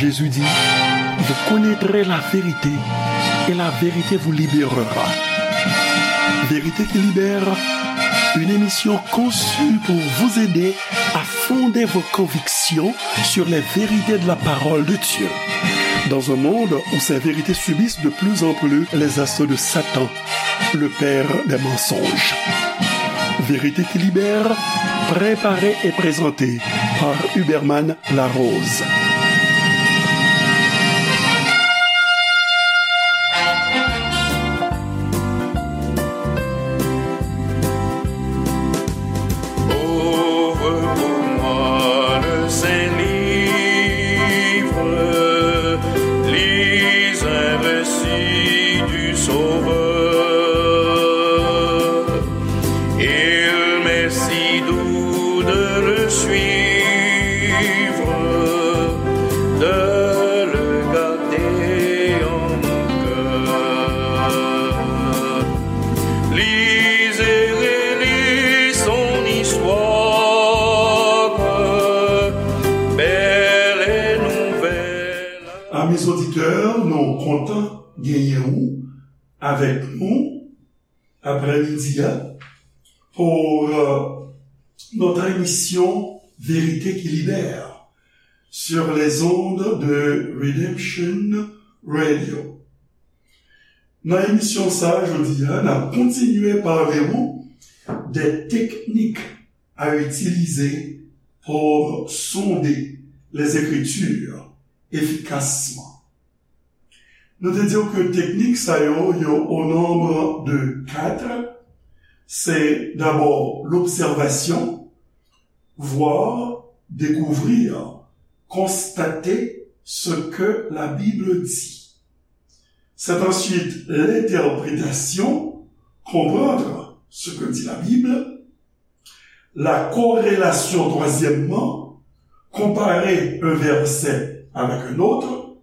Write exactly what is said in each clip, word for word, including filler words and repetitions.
Jésus dit, vous connaîtrez la vérité et la vérité vous libérera. Vérité qui libère, une émission conçue pour vous aider à fonder vos convictions sur les vérités de la parole de Dieu. Dans un monde où ces vérités subissent de plus en plus les assauts de Satan, le père des mensonges. Vérité qui libère, préparée et présentée par Huberman Larose. Ouvre pour moi le Saint-Livre, lis un récit du Sauveur. Il m'est si doux de le suivre, de le garder en mon cœur. Lis et relis son histoire, belle et nouvelle. Amis auditeurs, nou kontan genyen ou avèk nou aprèmidi a pou euh, notre émission Vérité qui libère sur les ondes de Redemption Radio. Nan emisyon sa a, jodi a, n ap kontinye pale w de teknik a itilize pou sonde les Écritures efficacement. Nou te di w ke teknik sa yo, yo au nombre de quatre. C'est d'abord l'observation, voir, découvrir, constater ce que la Bible dit. C'est ensuite l'interprétation, comprendre ce que dit la Bible, la corrélation, troisièmement, comparer un verset avec un autre,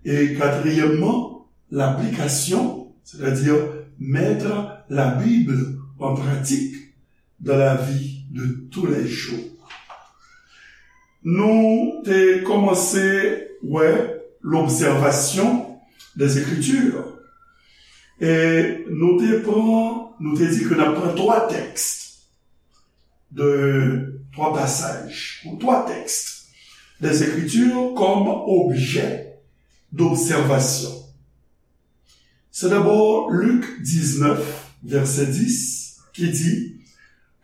et quatrièmement, l'application, c'est-à-dire mettre la Bible en pratique dans la vie de tous les jours. Nou te kòmanse wè l'observation des Écritures. E nou te pran, nou te di ke n ap pran twa tèks de twa pasaj, ou twa tèks des Écritures comme objet d'observation. C'est d'abord Luc dix-neuf, verset dix, qui dit,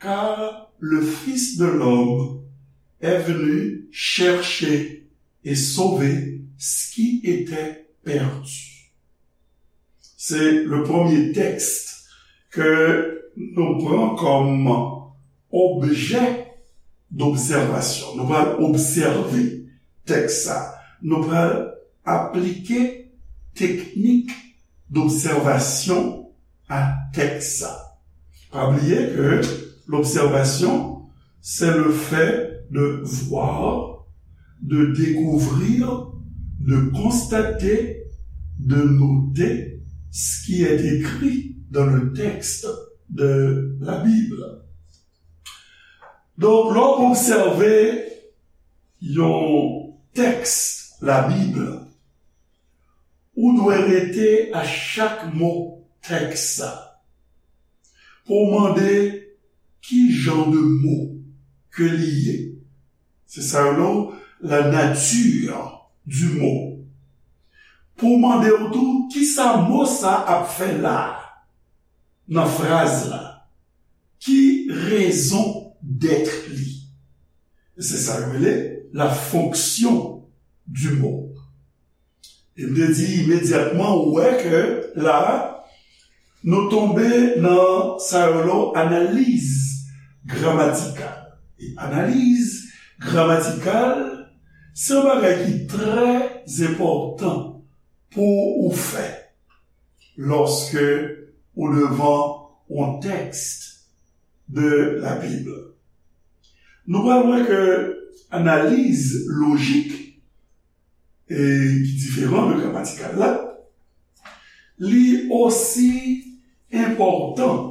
car le Fils de l'homme est venu chercher et sauver ce qui était perdu. Se le premye tèks ke nou pran kòm objè d'obsèvasyon. Nou pral obsève tèks sa. Nou pral aplike teknik d'obsèvasyon a tèks sa. Pa bliye ke l'observation, c'est le fait de voir, de découvrir, de constater, de noter ce qui est écrit dans le texte de la Bible. Donk, lè w obsève yon tèks Labib, ou dwe rete a chak mo tèks sa pou w mande ki jan de mo ke li ye. Se sa yo rele la nature du mot. Pou w mande w tou, kisa mo sa ap fè la a, nan fraz la? Ki raison d'être li? E se sa yo rele la fonction du mot. E m te di imedyatman, ou wè ke la, nou tonbe nan sa yo rele analiz gramatikal. E analiz gramatikal, se yon bagay ki trè enpòtan pou ou fè lòske ou devan yon tèks de la Bib. Nou pral wè ke analiz lojik, e ki diferan de gramatikal la, li osi enpòtan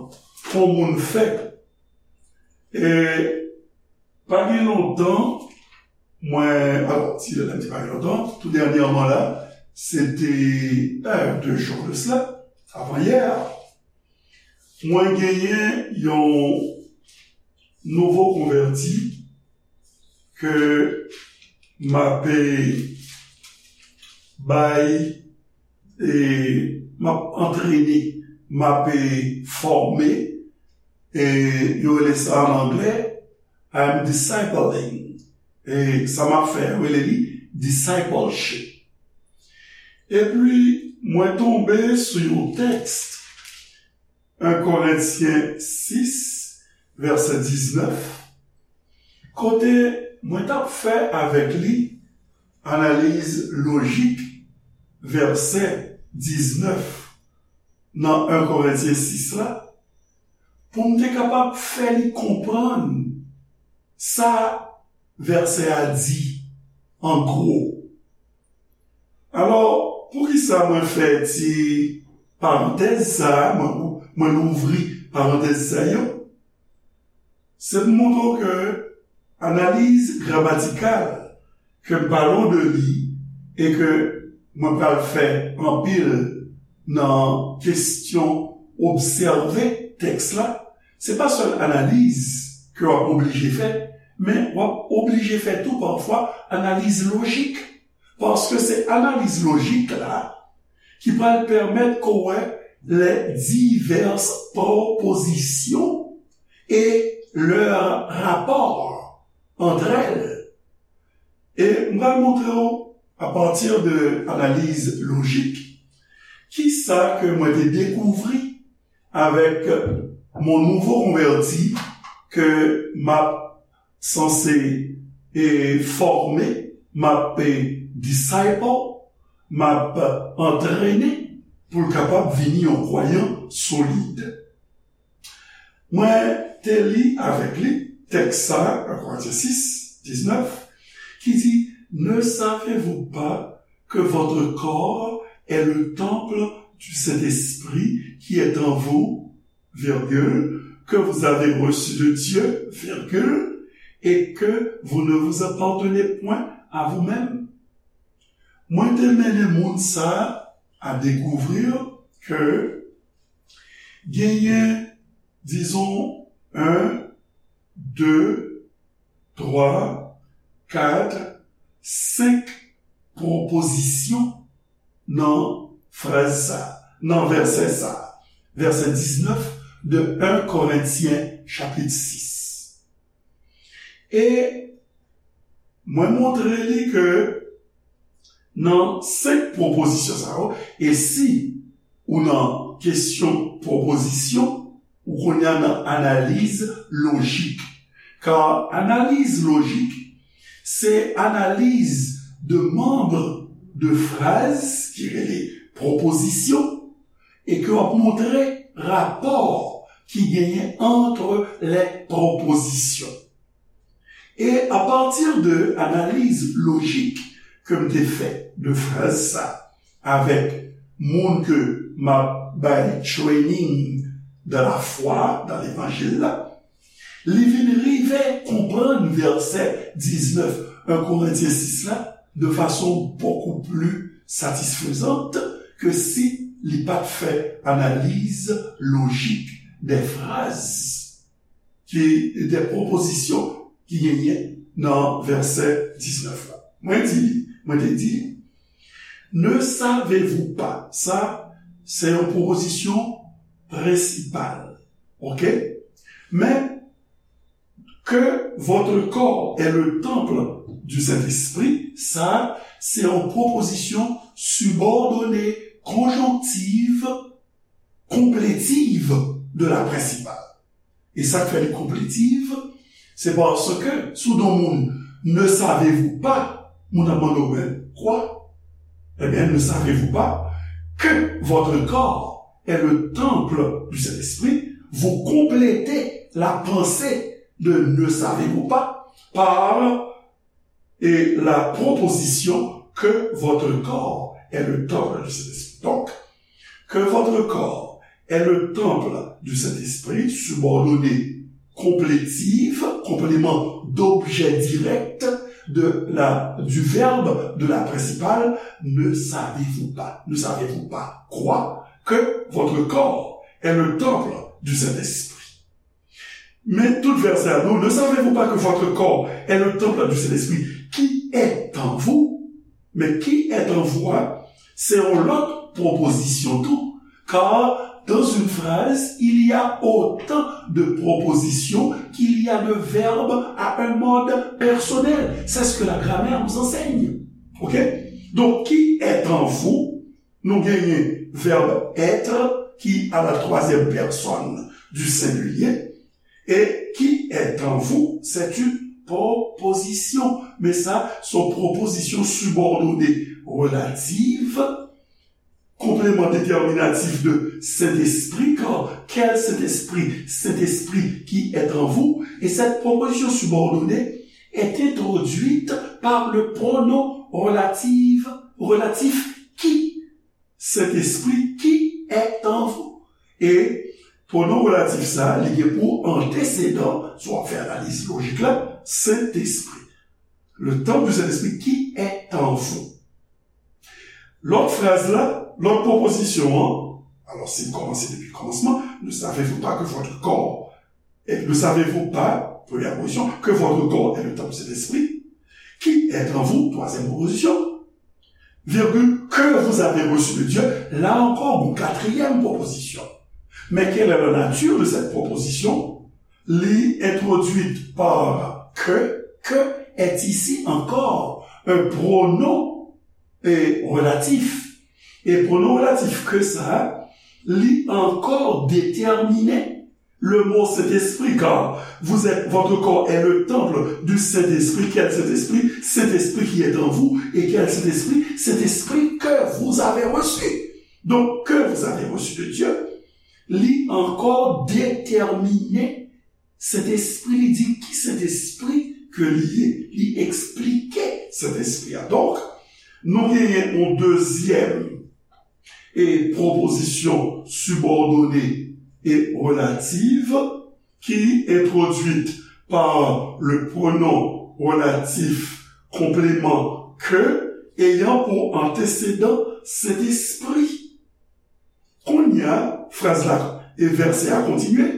pou moun fè. E pa gen lontan, Mwen, alò, ti lè m te pa gen lontan, tou dènyèman la, se te, euh, deux jours de cela, avan yè, mwen genyen yon nouvo konvèti ke m ap bay, e, m ap antrene, m ap fòme, e, yo rele sa an anglè, I am discipling. E sa m ap fè, yo rele li discipleship. Epi, mwen tonbe sou yon tèks, un Korentyen sis, vèsè diznèf, kote mwen t ap fè avèk li analiz lojik vèsè diznèf nan un Korentyen sis la, pou m te kapab fè li konprann sa vèsè a di an gwo. Alò, poukisa mwen fè ti parantèz sa a, mwen, mwen louvri parantèz sa yo? Se pou montre w ke analiz gramatikal ke m pale w de li e ke mwen pral fè anpil nan kesyon obsève tèks la, se pa sèl analiz ke w ap oblije fè, men w ap oblije fè tou pafwa analiz lojik. Paske se analiz lojik la ki pral pèmèt ke w wè les diverses propositions et leur rapport entre elles. E m pral montre w, à partir de analiz lojik, kisa ke mwen te dekouvri avèk mon nouvo konvèti ke m ap sanse, e, fòme, m ap, e, disciple, m ap antrene pou l kapab vini yon kwayan solid. Mwen te li avèk li tèks sa a, un Korentyen sis, diznèf, ki di, Ne savez-vous pas que votre corps est le temple du Saint-Esprit qui est en vous, virgule, que vous avez reçu de Dieu, virgule, et que vous ne vous appartenez point à vous-même? Mwen te mennen moun sa a à découvrir que genyen, disons, un, deux, trois, quatre, cinq propositions nan fraz sa, nan vèsè sa, vèsè diznèf de un Korentyen chapit sis. E mwen montre li ke nan senk pwopozisyon sa yo, e si ou nan kesyon pwopozisyon, ou kounye a nan analiz lojik. Ka analiz lojik, se analiz de manb de fraz ki rele pwopozisyon, e ke w ap montre rapò ki genyen entre les propositions. E apati de analiz lojik ke m te fè de fraz sa avèk moun ke m ap bay training dans la foi, dans l'évangile la, li vin rive konprann vèsè diznèf un Korentyen sis la de fason beaucoup plus satisfaisante ke si li pa t fè analiz lojik de fraz ki, de pwopozisyon ki genyen nan vèsè diznèf la. Mwen di li, mwen te di li, Ne savez-vous pas? Sa, se yon pwopozisyon prensipal. Oke? Men, que votre corps est le temple du Saint-Esprit, sa, se yon pwopozisyon sibòdone, konjonktiv, konpletiv de la prensipal. E sa k fè li konpletiv, se paske si w di yon moun, Ne savez-vous pas? Moun ap mande w, Ben, quoi? Eh bien, ne savez-vous pas que votre corps est le temple du Saint-Esprit? Vous complétez la pensée de Ne savez-vous pas par et la proposition que votre corps est le temple du Saint-Esprit. Donc, que votre corps est le temple du Saint-Esprit, subordonné complétif, complément d'objet direct, de la, du verbe de la principale, ne savez-vous pas, ne savez-vous pas quoi que votre corps est le temple du Saint-Esprit? Men tout vèsè a, non, ne savez-vous pas que votre corps est le temple du Saint-Esprit qui est en vous? Men qui est en vous a, se yon lòt pwopozisyon tou. Car dans une phrase, il y a autant de propositions qu'il y a de verbes à un mode personnel. C'est ce que la grammaire nous enseigne. OK? Donc, qui est en vous, nou genyen verbe être qui à la troisième personne du singulier. Et qui est en vous, c'est une proposition. Men sa, se yon pwopozisyon sibòdone relative, complément déterminatif de Saint-Esprit, car quel Saint-Esprit? Saint-Esprit qui est en vous. Et cette proposition subordonnée est introduite par le pronom relative, relatif qui. Saint-Esprit qui est en vous. E pwonon relatif sa, li gen pou antesedan, si w ap fè analiz lojik la, Sentespri. Le temple du Saint-Esprit qui est en vous. Lòt fraz la, lòt pwopozisyon an, alò, si n kòmanse depi kòmansman, ne savez-vous pas que votre corps, et ne savez-vous pas, première proposition, que votre corps est le temple du Saint-Esprit, qui est en vous, troisième proposition, virgule, que vous avez reçu de Dieu, là encore, une quatrième proposition. Mais quelle est la nature de cette proposition? Li introduite par que, que est ici encore un pronom et relatif. E pwonon relatif que sa, li ankò detèmine le mot Saint-Esprit, car vous êtes, votre corps est le temple du Saint-Esprit. Quel Saint-Esprit? Saint-Esprit qui est en vous. Et quel Saint-Esprit? Saint-Esprit que vous avez reçu. Donc, que vous avez reçu de Dieu, li ankò detèmine Sentespri, li di ki Sentespri ke li ye. Li eksplike Sentespri a. Donk, nou genyen yon dezyèm e pwopozisyon sibòdone e relative ki entwodwit pa le pronom relatif complément que ayant pour antécédent Saint-Esprit. Kounye a, fraz la e vèsè a kontinye.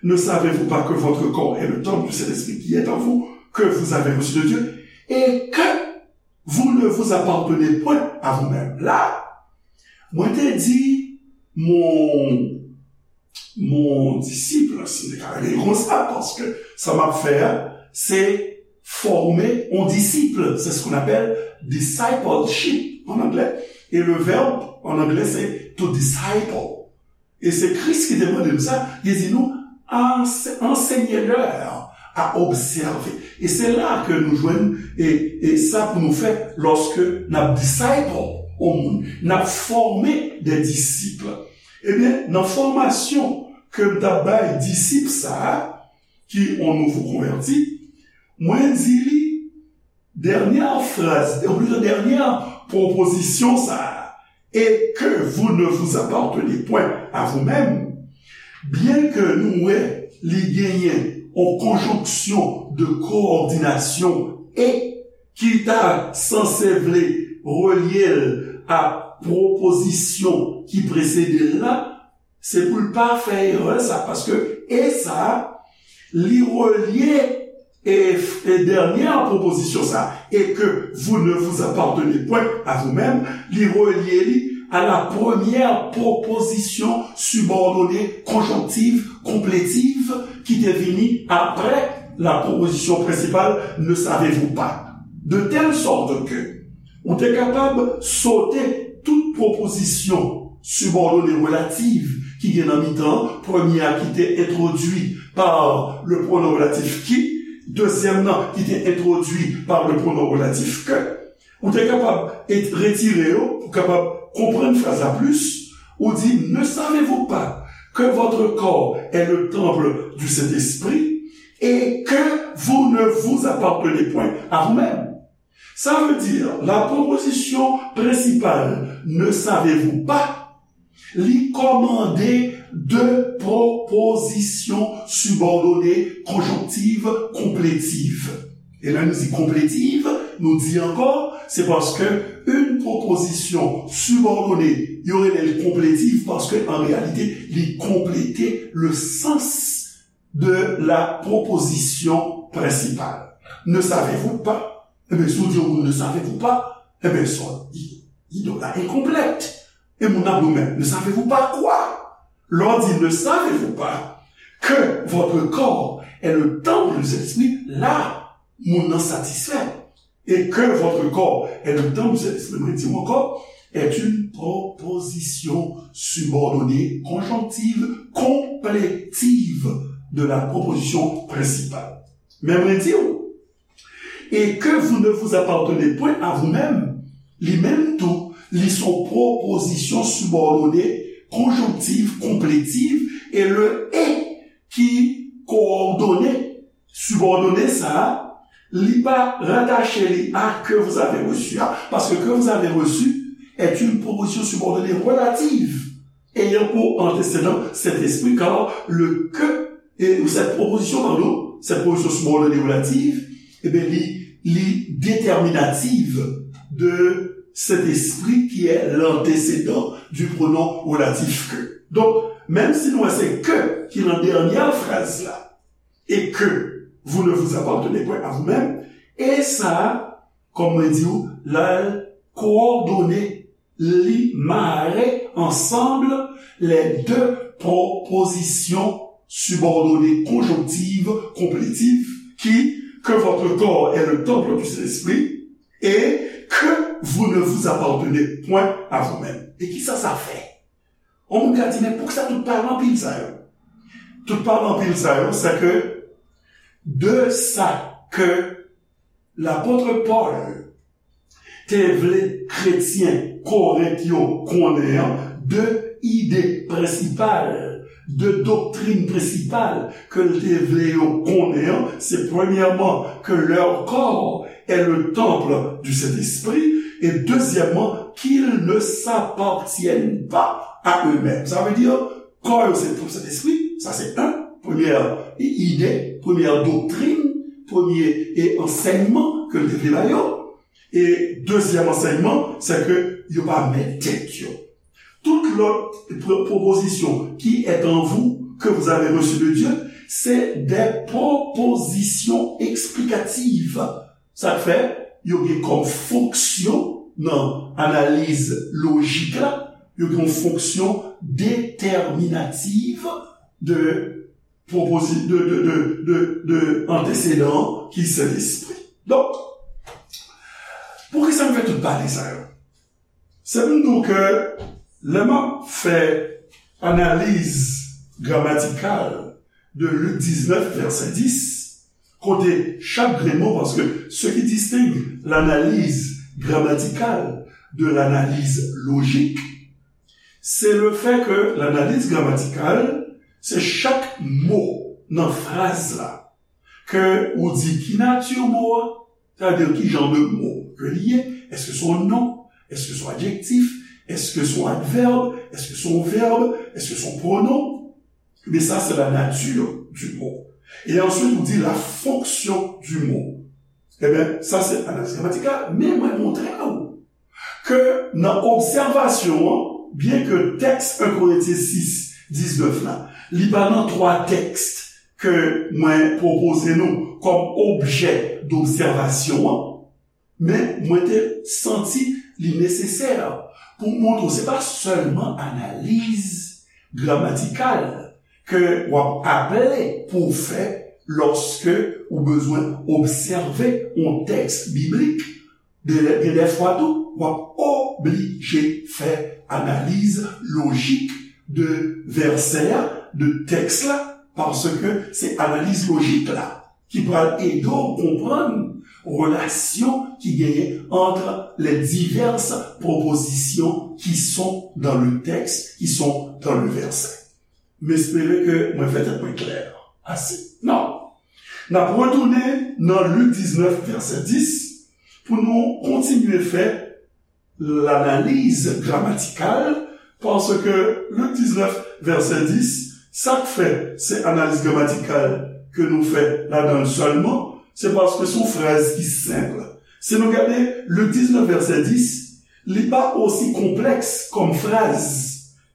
Ne savez-vous pas que votre corps est le temple du Saint-Esprit qui est en vous, que vous avez reçu de Dieu, et que vous ne vous appartenez point à vous-même? La, mwen te di mon, mon disip, si m te ka rele l konsa, paske sa m ap fè a, se fòme yon disip. C'est ce qu'on appelle discipleship en anglais. Et le verbe en anglais, c'est to disciple. E se Kris ki te mande m sa, li di nou, anse-, enseignez-leur à observer. E se la ke nou jwenn e, e sa pou nou fè lòske n ap disciple yon moun, n ap fòme de disip. Ebyen, nan fòmasyon ke m t ap bay disip sa a, ki yon nouvo konvèti, mwen di li, dènyè fraz, ou plito dènyè pwopozisyon sa a, et que vous ne vous appartenez point à vous-même, byen ke nou wè li genyen yon konjonksyon de kowòdinasyon e ki ta sanse vle relye l a pwopozisyon ki presede l la, se pou l pa fè erè sa, paske e sa, li relye e, e dènyè pwopozisyon sa, et que vous ne vous appartenez point à vous-même, li relye li à la première proposition subordonnée conjonctive complétive ki te vini apre la proposition principale, ne savez-vous pas? De telle sorte que ou te kapab sote tout pwopozisyon sibòdone relative ki gen nan mitan an, premye a ki te entwodui pa le pronom relatif qui, dezyèm nan ki te entwodui pa le pronom relatif que, ou te kapab et-, retire yo pou kapab konprann fraz la plis, ou di, ne savez-vous pas que votre corps est le temple du Saint-Esprit et que vous ne vous appartenez point à vous-même? Sa vle di, la pwopozisyon prensipal, ne savez-vous pas, li kòmande de pwopozisyon sibòdone konjonktiv konpletiv. E lè nou di konpletiv, nou di ankò, se paske yon pwopozisyon sibòdone, yo rele l konpletiv paske an reyalite, li konplete le sens de la proposition principale. Ne savez-vous pas? Ebyen, si w di yon moun ne savez-vous pas, ebyen, sa, il, il donne la incomplète. E moun nan ap di w, men, ne savez-vous pas quoi? Lè w di ne savez-vous pas que votre corps est le temple du Saint-Esprit, la, moun nan satisfè. Et que votre corps est le temple du Saint-Esprit, mwen di w ankò, est une proposition subordonnée, conjonctive, complétive de la proposition principale. Men mwen di w, et que vous ne vous appartenez point à vous-même, li menm tou, li se yon pwopozisyon sibòdone, konjonktiv, konpletiv, e le et ki kowòdone, sibòdone sa a, li pa ratache li a que vous avez reçu a, paske que vous avez reçu est une proposition subordonnée relative ayant pour antécédent Saint-Esprit, car le que, et cette proposition, pardon, cette proposition subordonnée relative, eh bien, li, li déterminative de Saint-Esprit qui est l'antécédent du pronom relatif que. Donk, menm si nou wè se que ki nan dènyè fraz la, et que vous ne vous appartenez point à vous-même, e sa, kòm mwen di w, la kowòdone, li mare ansanm les deux propositions subordonnées conjonctives, complétives, qui, que votre corps est le temple du Saint-Esprit et que vous ne vous appartenez point à vous-même. E kisa sa fè? Yon moun ka di, men poukisa tout pawòl anpil sa yo? Tout pawòl anpil sa yo, se ke de sa ke lapot Pòl te vle kretyen Korent yo konnen an, de ide prensipal, de doktrin prensipal ke l te vle yo konnen an, se premyèman que leur corps est le temple du Saint-Esprit, et deuxièmement, qu'ils ne s'appartiennent pas à eux-mêmes. Sa vle di, kò yo se tanp Sentespri, sa se yon, premyè ide, premyè doktrin, premye e ansèyman ke l te vle ba yo. E dezyèm ansèyman, se ke yo pa mèt tèt yo. Tout lòt pwo-, pwopozisyon qui est en vous, que vous avez reçu de Dieu, c'est des propositions explicatives. Sa k fè, yo gen kòm fonksyon nan analiz lojik la, yo gen yon fonksyon déterminative de proposi-, de, de, de, de, de antesedan ki Sentespri. Donk, poukisa m fè tout pale sa yo? Se pou m di w ke lè m ap fè analiz gramatikal de Lik diznèf, vèsè dis, kote chak grenn mo, paske ce qui distingue l'analyse grammaticale de l'analyse logique, c'est le fait que l'analyse grammaticale, se chak mo nan fraz la, ke ou di ki nati mo a, sa vle di ki jan de mo ke li ye, èske se yon non, èske se yon adjektif, èske se yon advèb, èske se yon vèb, èske se yon pwonon. Ebyen, sa se la nature du mot. E answit, ou di la fonction du mot. Ebyen, sa se analiz gramatikal, men mwen montre w ke nan obsèvasyon an, byen ke tèks en Korentyen sis, diznèf la, li pa nan twa tèks ke mwen pwopoze nou kòm objè dobsèvasyon an, men mwen te santi li nesesè pou m montre w se pa sèlman analiz gramatikal ke w ap aple pou w fè lòske ou bezwen obsève yon tèks biblik. De, gen de fwa tou, w ap oblije fè analiz lojik de vèsè a, de tèks la, paske se analiz lojik la ki pral ede w konprann relasyon ki genyen entre les diverses propositions qui sont dans le texte, qui sont dans le verset. M espere ke mwen fè tèt mwen klè ase. Non. N ap retounen nan Lik diznèf, vèsè dis, pou nou kontinye fè lanaliz gramatikal, paske Lik diznèf, vèsè dis, sa k fè se analiz gramatikal ke nou fè ladan l sèlman, Se paske se yon fraz ki senp. Si nou gade Lik diznèf vèsè dis, li pa osi konplèks kòm fraz,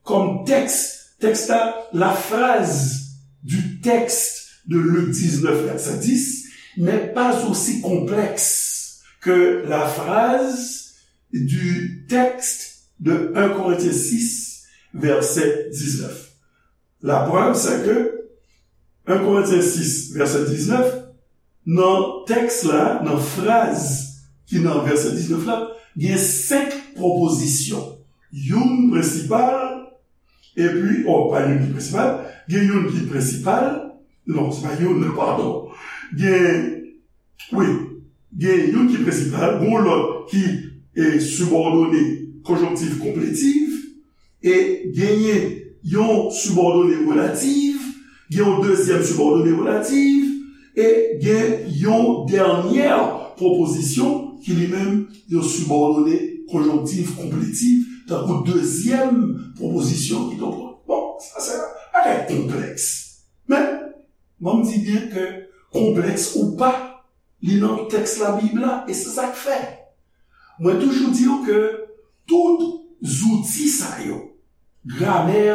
kòm tèks. Tèks la, la phrase du texte de Luc dix-neuf, verset dix, n'est pas aussi complexe que la phrase du texte de un Corinthiens six, verset dix-neuf. La preuve, c'est que un Corinthiens six, verset dix-neuf, nan tèks la, nan fraz ki nan vèsè diznèf la, gen senk pwopozisyon. Youn prensipal, epi, oh, pa youn ki prensipal, gen youn ki prensipal, non, se pa youn, padon. Gen, wi, gen youn ki prensipal, gon lòt ki e sibòdone konjonktif konpletif, e genyen yon sibòdone relatif, gen yon dezyèm sibòdone relatif, e gen yon dènyè pwopozisyon ki li menm yon sibòdone konjonktif konpletif, tankou dezyèm pwopozisyon ki donk. Bon, sa se bagay konplèks. Men, ban m di byen ke konplèks ou pa, li nan tèks Labib la, e se sa k fè. Mwen toujou di w ke tout zouti sa yo, gramè,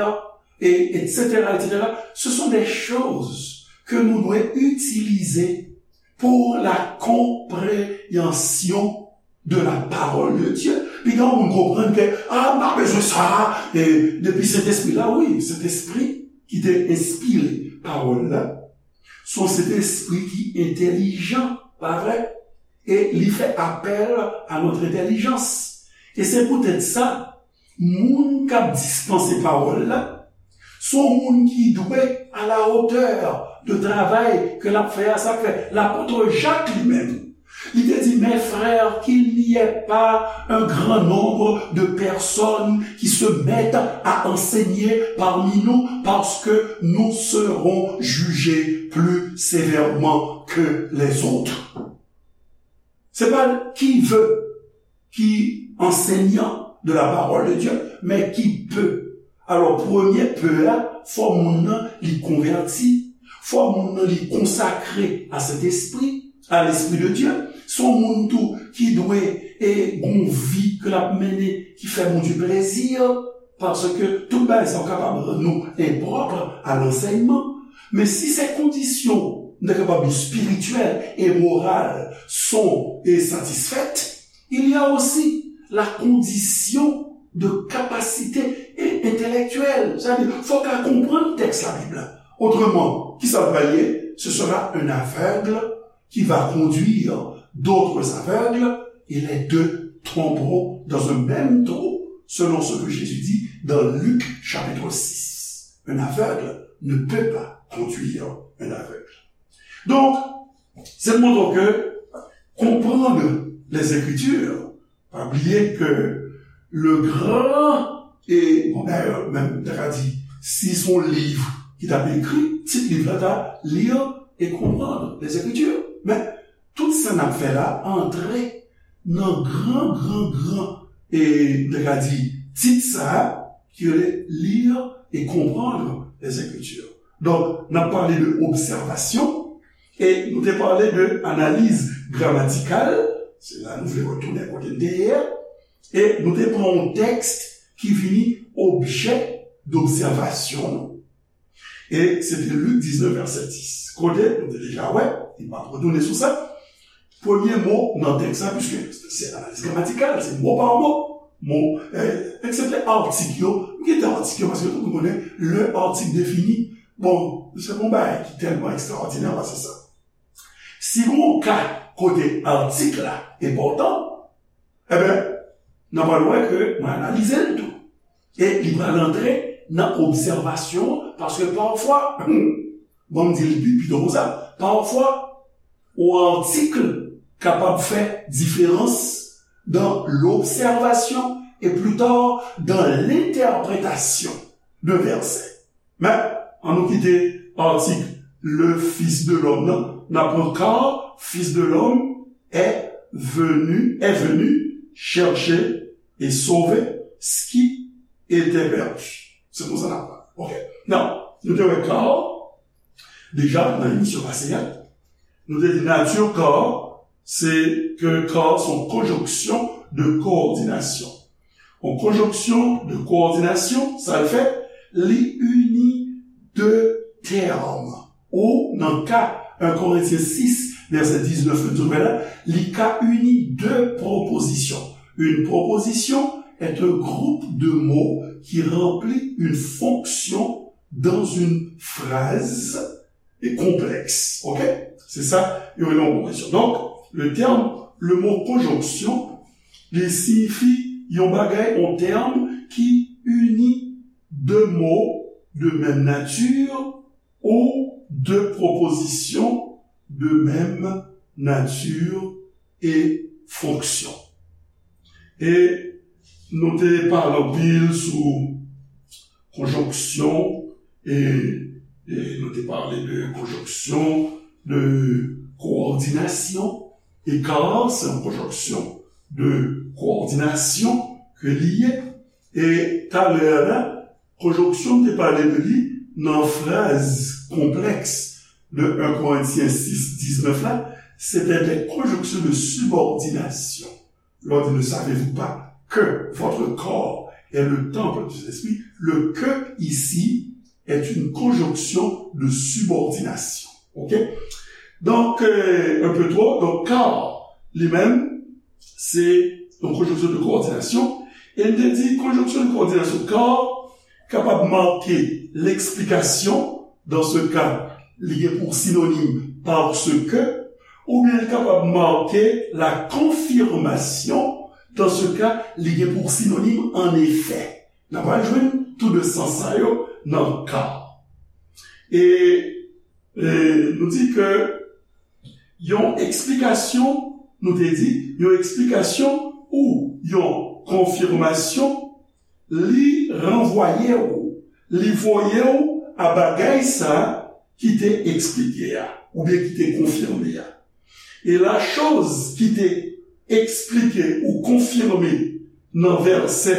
e, et cetera, et cetera, ce sont des choses que nous devons utiliser pour la compréhension de la parole de Dieu. Piga moun konprann ke, ah, m pa bezwen sa, e, depi Sentespri la, wi, Sentespri ki te enspire pawòl la, se yon Sentespri ki entèlijan, pa vre? E li fè apèl a notre intelligence. E se poutèt sa, moun k ap dispanse pawòl la, se yon moun ki dwe à la hauteur de travay ke l ap fè a. Sa k fè lapot Jak li menm, li te di, mes frères, qu'il n'y ait pas un grand nombre de personnes qui se mettent à enseigner parmi nous, parce que nous serons jugés plus sévèrement que les autres. Se pa qui veut ki enseignant de la parole de Dieu, men qui peut. Alò, premye peut a, fò moun nan li konvèti, fò moun nan li konsakre a Sentespri, a l'Esprit de Dieu. Se yon moun tou ki dwe e gon vi ke l ap mennen ki fè Bondye plezi, paske tout bagay sa yo kapab rann nou enpwòp a lansèyman. Men si se kondisyon nou ta kapab di espirityèl e moral son e satisfèt, il y a aussi la condition de capacité intellectuelle. Sa vle di, fòk ka konprann tèks Labib la. Autrement, ki sa l pral ye? Ce sera un aveugle qui va conduire d'autres aveugles, et les deux tomberont dans un même trou, selon ce que Jésus dit dans Luc chapitre six. Un aveugle ne peut pas conduire un aveugle. Donc, c'est de montrer que comprendre les Écritures, pa bliye ke le grand, e, bon, dayè, menm, ta ka di, si se yon liv ki t ap ekri, tit liv la ta Lire et comprendre les Écritures. Men, tout sa n ap fè la antre nan gran, gran, gran, e, ta ka di, tit sa a, ki rele Lire et comprendre les Écritures. Donk, n ap pale de obsèvasyon, e nou te pale de analiz gramatikal, se la nou vle retounen kote n te ye a, e nou te pran yon tèks ki vini objè dobsèvasyon nou. E se te Lik diznèf, vèsè dis. Kote, nou te deja wè, e m ap retounen sou sa. Premye mo nan tèks la, piske se analiz gramatikal, se mo pa mo. Mo, eh, eksepte atik yo, m kite atik yo, paske tout moun konnen, le article défini, bon, se pa yon bagay ki tèlman ekstraòdinè pase sa. Si gon ka kote atik la enpòtan, Eben, n a pral wè ke mwen analize l tou. E li pral antre nan obsèvasyon, paske pafwa, bon, m di l pi, pito konsa, pafwa, yon atik kapab fè diferans dans l'observation et plus tard dans l'interprétation de versets. Men, ann nou kite atik le Fils de l'homme nan. N ap pran car Fils de l'homme est venu, est venu chercher et sauver ce qui était perdu. Se konsa n ap pran. Ok. Nan, nou te wè car deja nan emisyon pase a. Nou te di nati car, se ke car se yon konjonksyon de kowòdinasyon. Yon konjonksyon de kowòdinasyon, sa l fè, li ini de tèm. Ou, nan ka en Korentyen sis, vèsè diznèf, nou di la, li ka ini de pwopozisyon. Une proposition est un groupe de mots qui remplit une fonction dans une phrase et complexe. Ok? Se sa, yo rele yon pwopozisyon. Donk, le terme, le mot conjonction, li siyifi yon bagay, yon tèm ki ini de mo de menm nati ou de pwopozisyon de menm nati e fonksyon. E nou te pale anpil sou konjonksyon, e, e nou te pale de konjonksyon de kowòdinasyon, e car se yon konjonksyon de kowòdinasyon ke li ye. E talè a la, konjonksyon m te pale de li nan fraz konplèks de en Korentyen sis diznèf la, se te de konjonksyon de sibòdinasyon. Lè w di, ne savez-vous pas que votre corps est le temple du Saint-Esprit? Le que ici est une conjonction de subordination. Ok? Donk, euh, un peu trop. Donk, car, li menm, se yon konjonksyon de kowòdinasyon. E n te di, konjonksyon de kowòdinasyon, car, kapab make leksplikasyon, dans ce cas, li gen pou sinonim parce que, oubyen li kapab make la confirmation, dans ce cas, li gen pou sinonim en effet. N ap al jwenn tou de sans sa yo nan car. E, e nou di ke yon eksplikasyon, nou te di, yon eksplikasyon ou yon konfimasyon, li ranvwaye w, li voye w a bagay sa ki te eksplike a, oubyen ki te konfime a. E la choz ki te eksplike ou konfime nan vèsè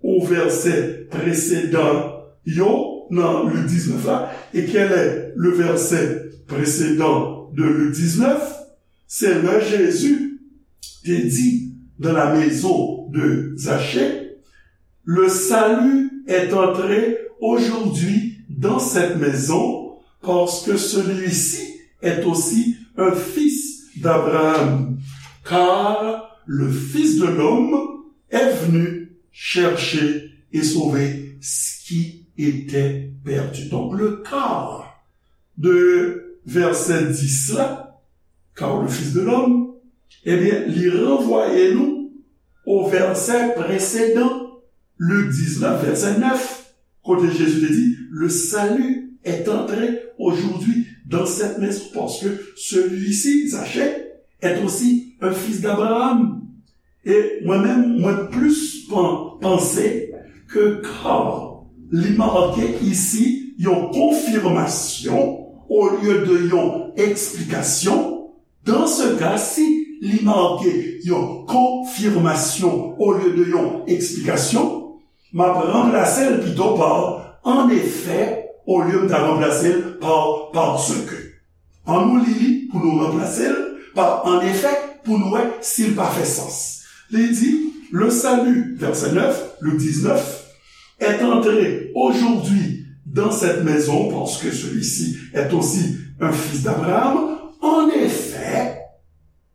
ou vèsè presedan yo nan Lik diznèf la, e kèl è le vèsè presedan de Lik diznèf? Se lè Jezi te di dans la maison de Zachée, le salut est entré aujourd'hui dans cette maison, parce que celui-ci est aussi un fils d'Abraham, car le Fils de l'homme est venu chercher et sauver ce qui était perdu. Donc le car de vèsè dis la, car le Fils de l'homme, ebyen, li ranvwaye nou o vèsè presedan, Lik diznèf, vèsè nèf, kote Jezi te di, le salut est entré aujourd'hui dans cette maison, parce que celui-ci, Zachée, est aussi un fils d'Abraham. E mwen menm, mwen plis pan-, panse ke car li make isi yon konfimasyon olye de yon eksplikasyon. Dans ce cas, si li make yon konfimasyon olye de yon eksplikasyon, m ap ranplase l pito pa en effet, olye m ta ranplase l pa parce que. An nou li li pou nou ranplase l pa en effet pou nou wè si l pa fè sans. Li di, le salut, vèsè nèf, Lik diznèf, est entré aujourd'hui dans cette maison parce que celui-ci est aussi un fils d'Abraham. En effet,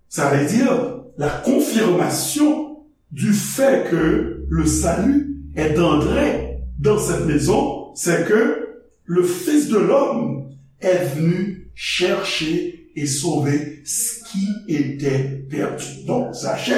ça veut dire la confirmation du fait que le salut est entré dans cette maison, c'est que le Fils de l'homme est venu chercher et sauver ce qui était perdu. Donc, Zachée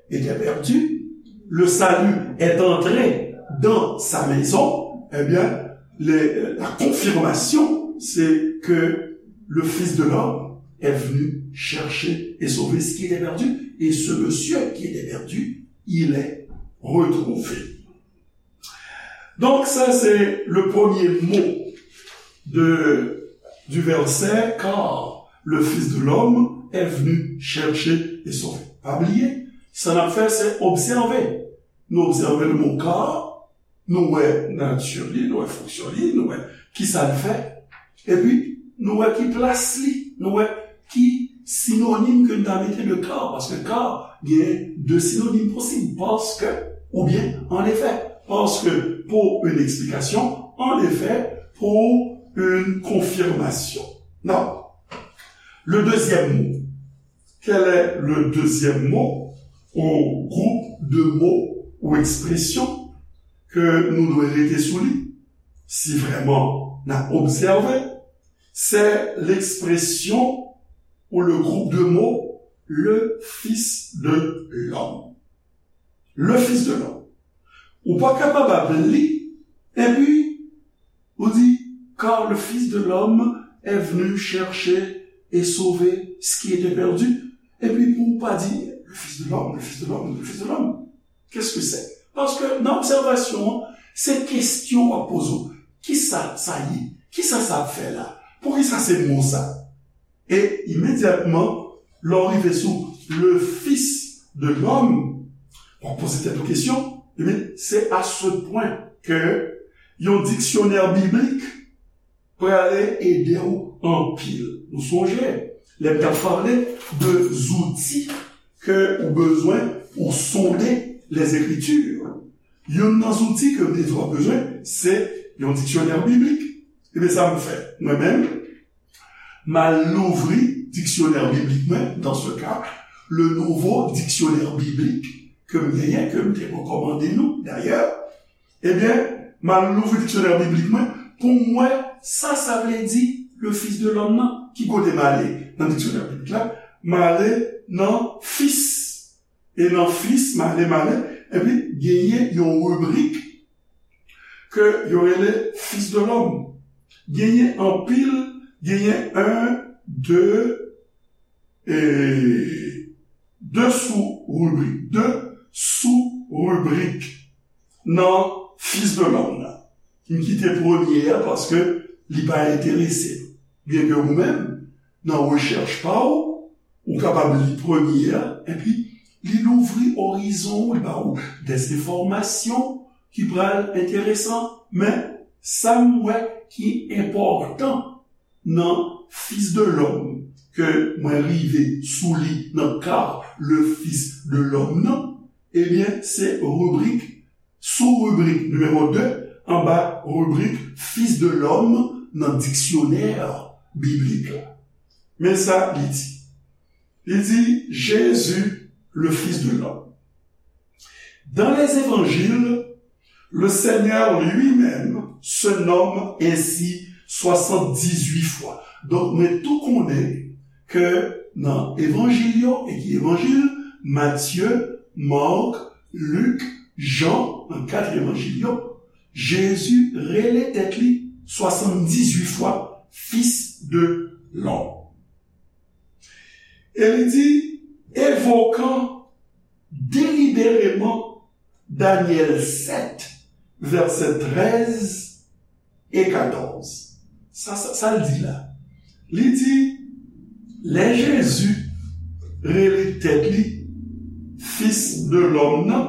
était perdu. Le salut est entré dans sa maison. Eh bien, les, la confirmation, c'est que le Fils de l'homme est venu chercher et sauver ce qui était perdu. Et ce monsieur qui était perdu, il est retrouvé. Donc, ça, c'est le premier mot de, du verset, car le Fils de l'homme est venu chercher et sauver. Pa bliye, sa n ap fè, se obsève. Nou obsève le mot car, nou wè nati li, nou wè fonksyon li, nou wè kisa l fè, epi nou wè ki plas li, nou wè ki sinonim ke n ta mete de car, paske car gen de sinonim posib, paske, oubyen, en effet, paske, pour une explication, en effet, pour une confirmation. Non. Le deuxième mot. Quel est le deuxième mot ou groupe de mots ou expressions ke nou dwe rete sou li, si vrèman n ap obsève, c'est l'expression ou le groupe de mots le Fils de l'homme. Le Fils de l'homme. Ou pa kapab ap li, epi ou di, car le Fils de l'homme est venu chercher et sauver ce qui était perdu. Epi pou ou pa di, le Fils de l'homme, le Fils de l'homme, le Fils de l'homme. Qu'est-ce que c'est? Paske nan obsèvasyon an, se kesyon w ap poze w. Kisa sa ye? Kisa sa ap fè la? Poukisa se mo sa? E imedyatman, lè w rive sou le Fils de l'homme, w ap poze tèt ou kesyon, ebyen, se à ce point ke yon diksyonè biblik prale ede w anpil. Nou sonje, lè m t ap pale de zouti ke ou bezwen pou sonde les Écritures. Youn nan zouti ke w te di w ap bezwen, se yon diksyonè biblik. Ebyen, sa m fè. Mwen menm, m al louvri diksyonè biblik mwen, dans ce cas, le nouveau dictionnaire biblique ke m genyen, ke m te rekòmande nou, dayè. Ebyen, m al louvri diksyonè biblik mwen pou m wè sa sa vle di le Fils de l'homme nan. Ki kote m ale nan diksyonè biblik la? M ale nan Fils. E nan Fils, m ale, m ale, epi genyen yon ribrik ke yo rele Fils de l'homme. Genyen anpil, genyen un, deux, e de sou ribrik, de sou ribrik nan Fils de l'homme nan. M kite premye a paske li pa enterese m. Byenke ou menm, nan rechèch pa w, ou kapab li premye a, epi li louvri orizon w, li ba w des enfòmasyon ki pral enteresan. Men, sa m wè ki enpòtan nan Fils de l'homme, ke mwen rive sou li nan ka le Fils de l'homme nan, ebyen, se ribrik, sou ribrik nimewo de, anba ribrik Fils de l'homme nan diksyonè biblik la. Men sa li di. Li di, Jésus, le Fils de l'homme. Dans les évangiles, le Seigneur lui-même se nomme ainsi soixante-dix-huit fois. Donk, mwen tou konnen ke nan evanjil yo, e ki evanjil? Matye, Mak, Lik, Jan, nan kat evanjil yo, Jezi rele tèt li swasanndizwit fwa Fils de l'homme. E li di, evokan delibereman Danyèl sèt, vèsè trèz e katòz. Sa, sa, sa l di la? Li di, lè Jezi rele tèt li Fis de lòm nan,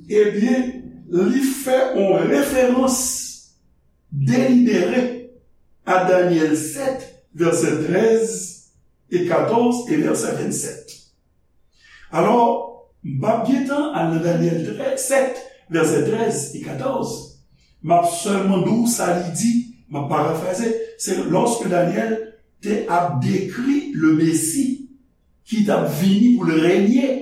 ebyen, li fè yon referans delibere a Danyèl sèt, vèsè trèz e katòz e vèsè vennsèt. Alò, m p ap gentan al nan Danyèl trèz, sèt, vèsè trèz e katòz. M ap sèlman di w sa li di, m ap parafraze, se lòske Danyèl te ap dekri le Mesi ki t ap vini pou l renye,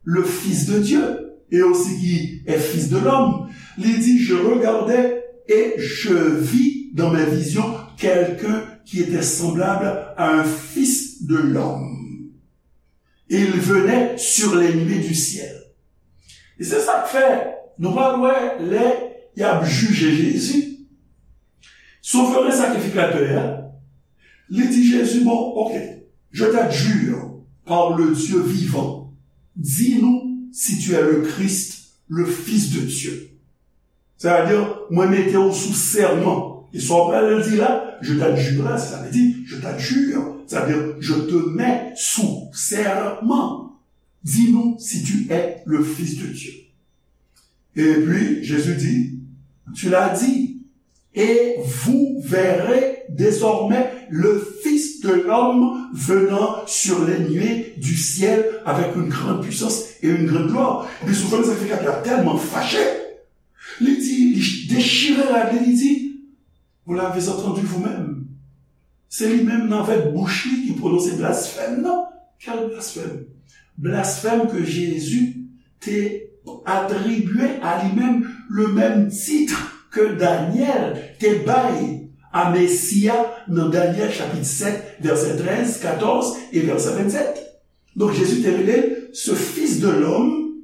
le Fils de Dieu, et aussi qui est Fils de l'homme. Li di, je regardais et je vis dans mes visions quelqu'un qui était semblable à un fils de l'homme. Et il venait sur les nuées du ciel. E se sa k fè, nou pral wè lè y ap jije Jezi, Souvren Sakrifikatè a, li di Jezi, bon, ok, je t'adjure par le Dieu vivant, dis-nous si tu es le Christ, le Fils de Dieu. Sa vle di, mwen mete w sou sèman. E sa w pral di la, je t'adjure la, sa vle di, je t'adjure, sa vle di, je te mets sous serment. Dis-nous si tu es le Fils de Dieu. Et puis, Jésus dit, tu l'as dit, Et vous verrez désormais le Fils de l'homme venant sur les nuées du ciel avec une grande puissance et une grande gloire. Epi sou fè sa ki fè Pyè tèlman fache, li di, li dechire rad li, li di, vous l'avez entendu vous-même. Se li menm nan avèk bouch li ki pwononse blasfèm nan. Quel blasphème? Blasphème que Jésus te atribye a li menm le menm tit ke Danyèl te bay a Mesi a nan Danyèl chapit sèt, vèsè trèz, katòz e vèsè vennsèt. Donk, Jezi te rele l ce Fils de l'homme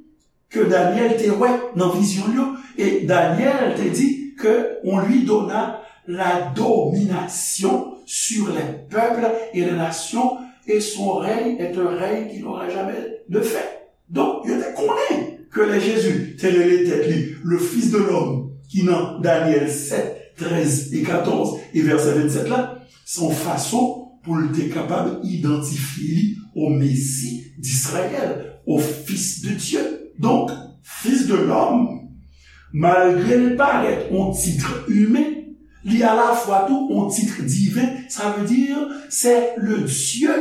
ke Danyèl te wè nan vizyon l yo. E Danyèl te di que on lui donna la domination sur les peuples et les nations, et son règne est un règne qui n'aura jamais de fin. Donk, yo te konnen ke lè Jezi te rele tèt li le Fils de l'homme, ki nan Danyèl sèt, trèz e katòz e vèsè vennsèt la, se yon fason pou l te kapab idantifye li o Mesi d'Israël, o Fils de Dieu. Donk, Fils de l'homme, malgre l parèt yon tit imen, li alafwa tou yon tit diven, sa vle di, c'est le Dieu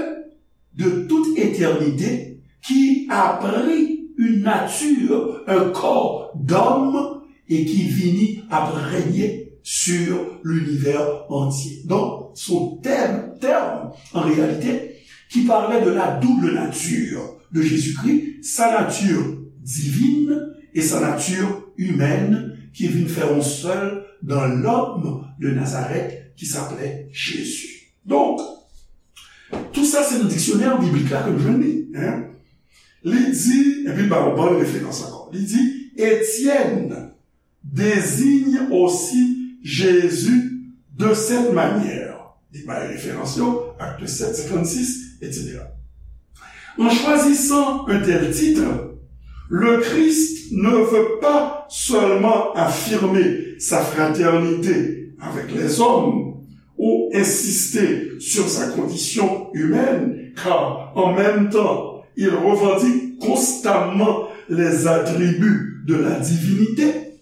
de toute éternité qui a pris une nature, un corps d'homme et qui vini ap règne sur l'univers entier. Donc, son thème, terme, en réalité, qui parlait de la double nature de Jésus-Christ, sa nature divine et sa nature humaine qui vin fè yon sèl dans l'homme de Nazareth qui s'appelait Jésus. Donk, tou sa se nan diksyonè biblik la ke nou jwenn li. Hein? Li di, epi ba yon bann referans ankò. Li di, Étienne désigne aussi Jésus de cette manière. Li bay referans yo, Acte sept, cinquante-six, et cetera. En choisissant un tel titre, le Christ ne veut pas seulement affirmer sa fraternité avec les hommes ou insister sur sa condition humaine, car en même temps, il revendique constamment les attributs de la divinité.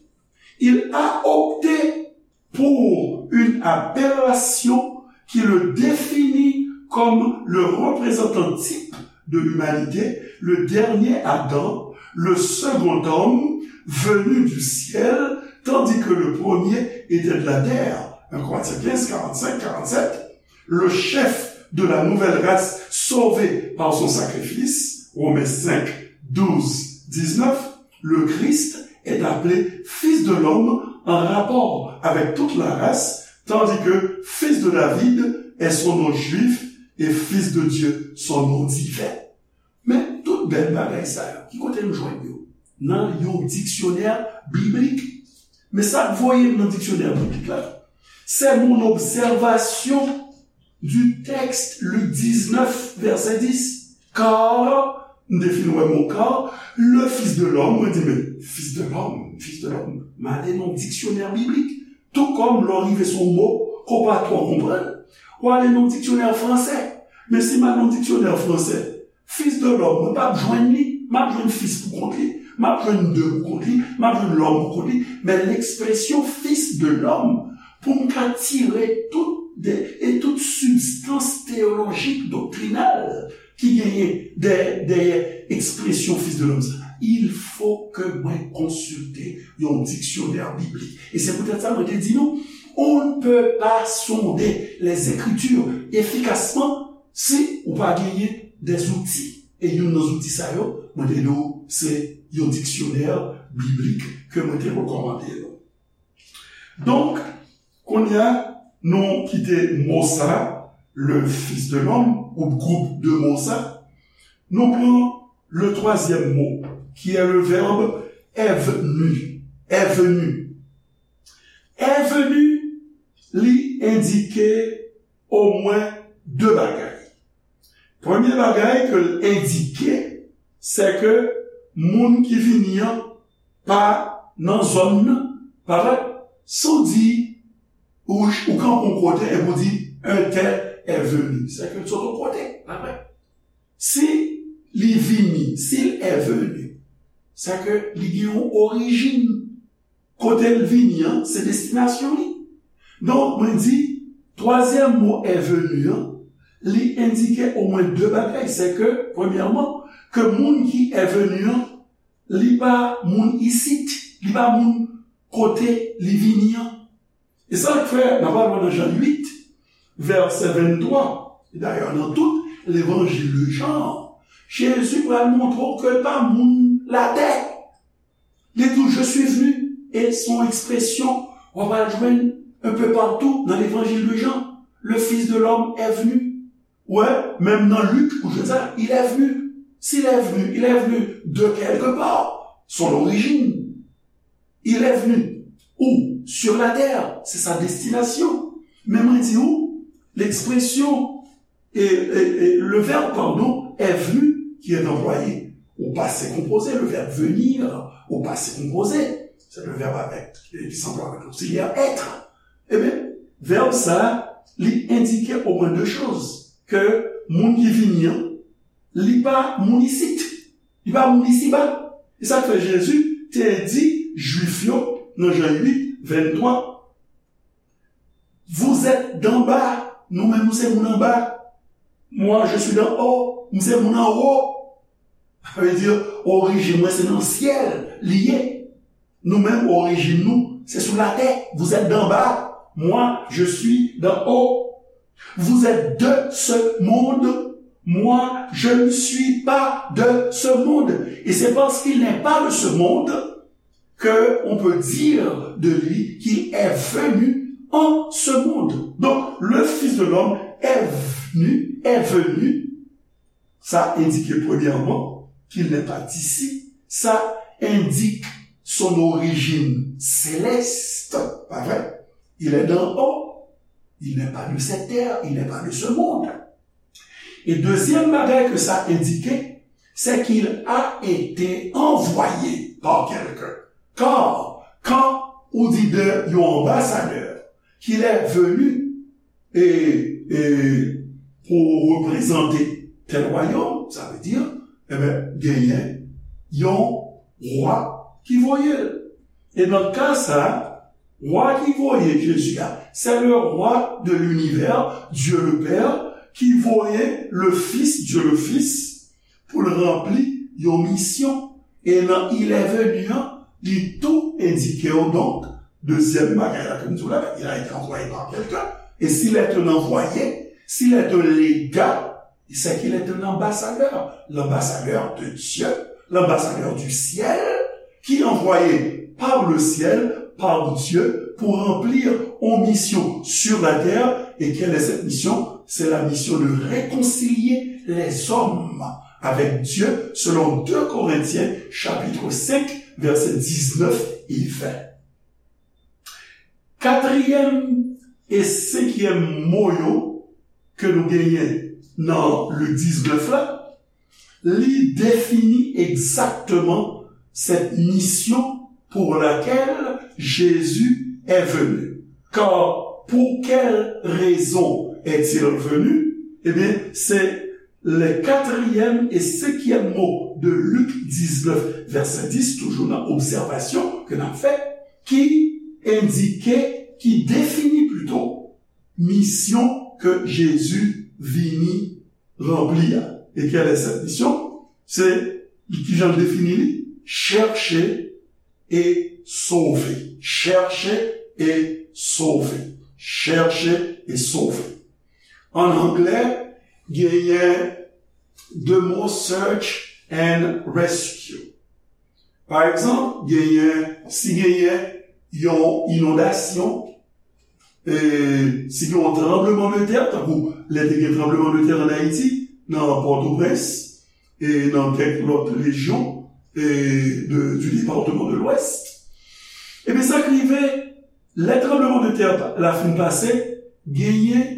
Il a opté pour une appellation qui le définit comme le représentant type de l'humanité, le dernier Adam, le second homme venu du ciel, tandis que le premier était de la terre. Un Corinthiens quinze, quarante-cinq, quarante-sept. Le chef de la nouvelle race sauvée par son sacrifice, Romains cinq, douze, dix-neuf, le Christ est appelé Fils de l'homme en rapport avec toute la race, tandis que Fils de David est son nom juif et Fils de Dieu son nom divin. Men tout bèl bagay sa yo, ki kote nou jwenn yo? Nan yon diksyonè biblik. Men sa k voye m nan diksyonè biblik la, c'est mon observation du texte, Luc dix-neuf, verset dix. Car, m te fin wè mo car, le Fils de l'homme, mwen di, men, Fils de l'homme, Fils de l'homme. M ale nan diksyonè biblik. Tou kòm lè w rive sou yon mo ke w pa twò konprann, w ale nan diksyonè fransè. Men si m al nan diksyonè fransè, Fils de l'homme, mwen p ap jwenn li, m ap jwenn fis pou kont li, m ap jwenn de pou kont li, m ap jwenn l'homme pou kont li, men lekspresyon Fils de l'homme, pou m ka tire tout de, e tout sibstans teyolojik, doktrinal ki genyen dèyè, dèyè ekspresyon Fils de l'homme sa, il faut que mwen konsilte yon diksyonè biblik. E se poutèt sa mwen te di nou, on ne peut pas sonder les Écritures efficacement si ou pa genyen des outils. E youn nan zouti sa yo, mwen te di w, se yon diksyonè biblik ke mwen te rekòmande nou. Donk, kounye a, nou kite mo sa, le Fils de l'homme, ou gwoup de mo sa, nou pran le troisième mot, qui est le verbe est venu. Est venu. Est venu, li endike omwen de bagay. Premye bagay ke l endike, se ke moun ki vini an pa nan zòn nan, pa vre? Si w di, ou, ou kanpe yon kote epi w di, un tel est venu, se ke l sot yon kote, pa vre? Si li vini, s'il est venu, se ke li gen yon orijin. Kote l vini an, se destinasyon li. Donk, mwen di, twazyèm mo est venu an, li endike omwen de bagay. Se ke, premyèman, ke moun ki est venu an, li pa moun isit, li pa moun kote li vini an. E sa k fè, n ap al wè nan Jan uit, vèsè venntwa, e dayè nan tout levanjil de Jan, Jezi pral montre w ke l pa moun latè. Li di w, je suis venu, e se yon ekspresyon w ap al jwenn un peu partout nan levanjil de Jan. Le Fils de l'homme est venu. Ou wè, menm nan Lik, ou jwenn sa, il est venu. S'il est venu, il est venu de quelque part. Son origine. Il est venu. Où? Sur la terre. C'est sa destination. Men mwen di w, l'expression, et, et, et le verbe, pardon, est venu, qui est employé au passé composé, le verbe venir au passé composé, c'est le verbe avec, qui s'emploie avec l'auxiliaire être. Ebyen, vèb sa, li endike omwen de choz. Ke moun ki vini an, li pa moun isit. Li pa moun isiba. E sa k fè Jezi te di Jwif yo nan Jan uit, venntwa, vous êtes d'en bas, nou menm nou se moun anba. Moi, je suis d'en haut, m se moun anwo. Sa vle di, orijin mwen se nan syèl li ye. Nou menm, orijin nou, se sou latè. Vous êtes d'en bas. Moi, je suis d'en haut. Vous êtes de ce monde. Moi, je ne suis pas de ce monde. Et c'est parce qu'il n'est pas de ce monde que on peut dire de lui qu'il est venu en ce monde. Donc, le Fils de l'homme est venu, est venu Sa indique premièrement qu'il n'est pas d'ici. Ça indique son origine céleste, pas vrai? Il est d'en haut. Il n'est pas de cette terre, il n'est pas de ce monde. Et deuxième bagay que ça indique, c'est qu'il a été envoyé par quelqu'un. Car, quand on dit de yon ambassadeur, qu'il est venu, e, e pou reprezante tèl wayòm, sa vle di, enben, genyen yon wa ki voye l. E nan ka sa a, wa ki voye Jezi a, c'est le roi de l'univers, Dieu le Père, ki voye le Fils, Dieu le Fils, pou l ranpli yon misyon. E nan il est venu an, li tou endike w donk, dezyèm bagay la ke m di w la, il a été envoyé par quelqu'un. Et s'il est un envoyé, s'il est un légat, c'est qu'il est un ambassadeur, l'ambassadeur de Dieu, l'ambassadeur du ciel, qui est envoyé par le ciel, par Dieu, pour remplir une mission sur la terre. Et quelle est cette mission? C'est la mission de réconcilier les hommes avec Dieu, selon deux Corinthiens chapitre cinq, versets dix-neuf et vingt. Katriyèm e senkyèm mo yo ke nou genyen nan Lik diznèf la, li defini egzakteman cette mission pour laquelle Jésus est venu. Car pour quelle raison est-il venu? Ebyen, se le katriyèm e senkyèm mo de Lik diznèf, vèsè dis, toujou nan obsèvasyon ke n ap fè, ki endike, ki defini plito, misyon ke Jezi vini ranpli a. E quelle est cette mission? Se, kijan l defini li? Chercher et sauver. Chercher et sauver. Chercher et sauver. An anglè, genyen de mo search and rescue. Pa egzanp, genyen, si genyen yon inondasyon, e, si gen yon tranbleman de tè, tankou lè te gen tranbleman de tè an Ayiti, nan Pòtoprens, e nan kèk lòt rejyon, e de, du département de l'Ouest, ebyen, sa k rive, lè tranbleman de tè la fin pase, genyen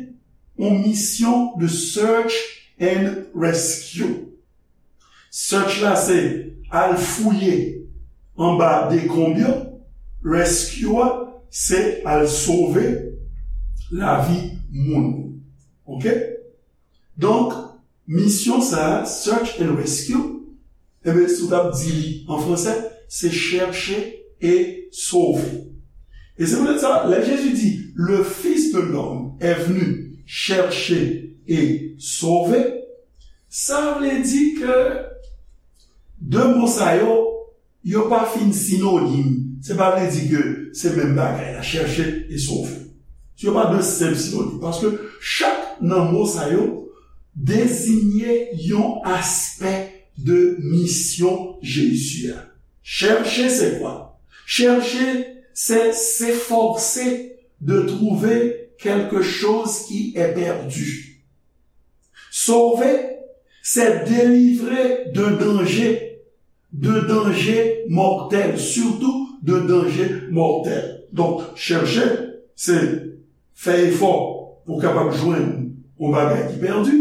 yon misyon de search and rescue. Search la se al fouye anba dekonb yo, rescue a se al sove lavi moun. Oke? Donk, misyon sa a, search and rescue, enben, si w t ap di li an fransè, se chercher et sauver. E se poutèt sa, lè Jezi di, le Fils de l'homme est venu chercher et sauver, sa vle di ke de mo sa yo, yo pa fin sinonim. Se pa vle di ke se menm bagay la, chèche e sove. Yo pa de senp sinonim. Paske chak nan mo sa yo deziye yon aspè de misyon Jezi a. Chercher, c'est quoi? Chercher, c'est s'efforcer de trouver quelque chose qui est perdu. Sauver, c'est délivrer d'un danger, d'un danger mortel, surtout d'un danger mortel. Donk, chèche, se fè efò pou w kapab jwenn yon bagay ki pèdi.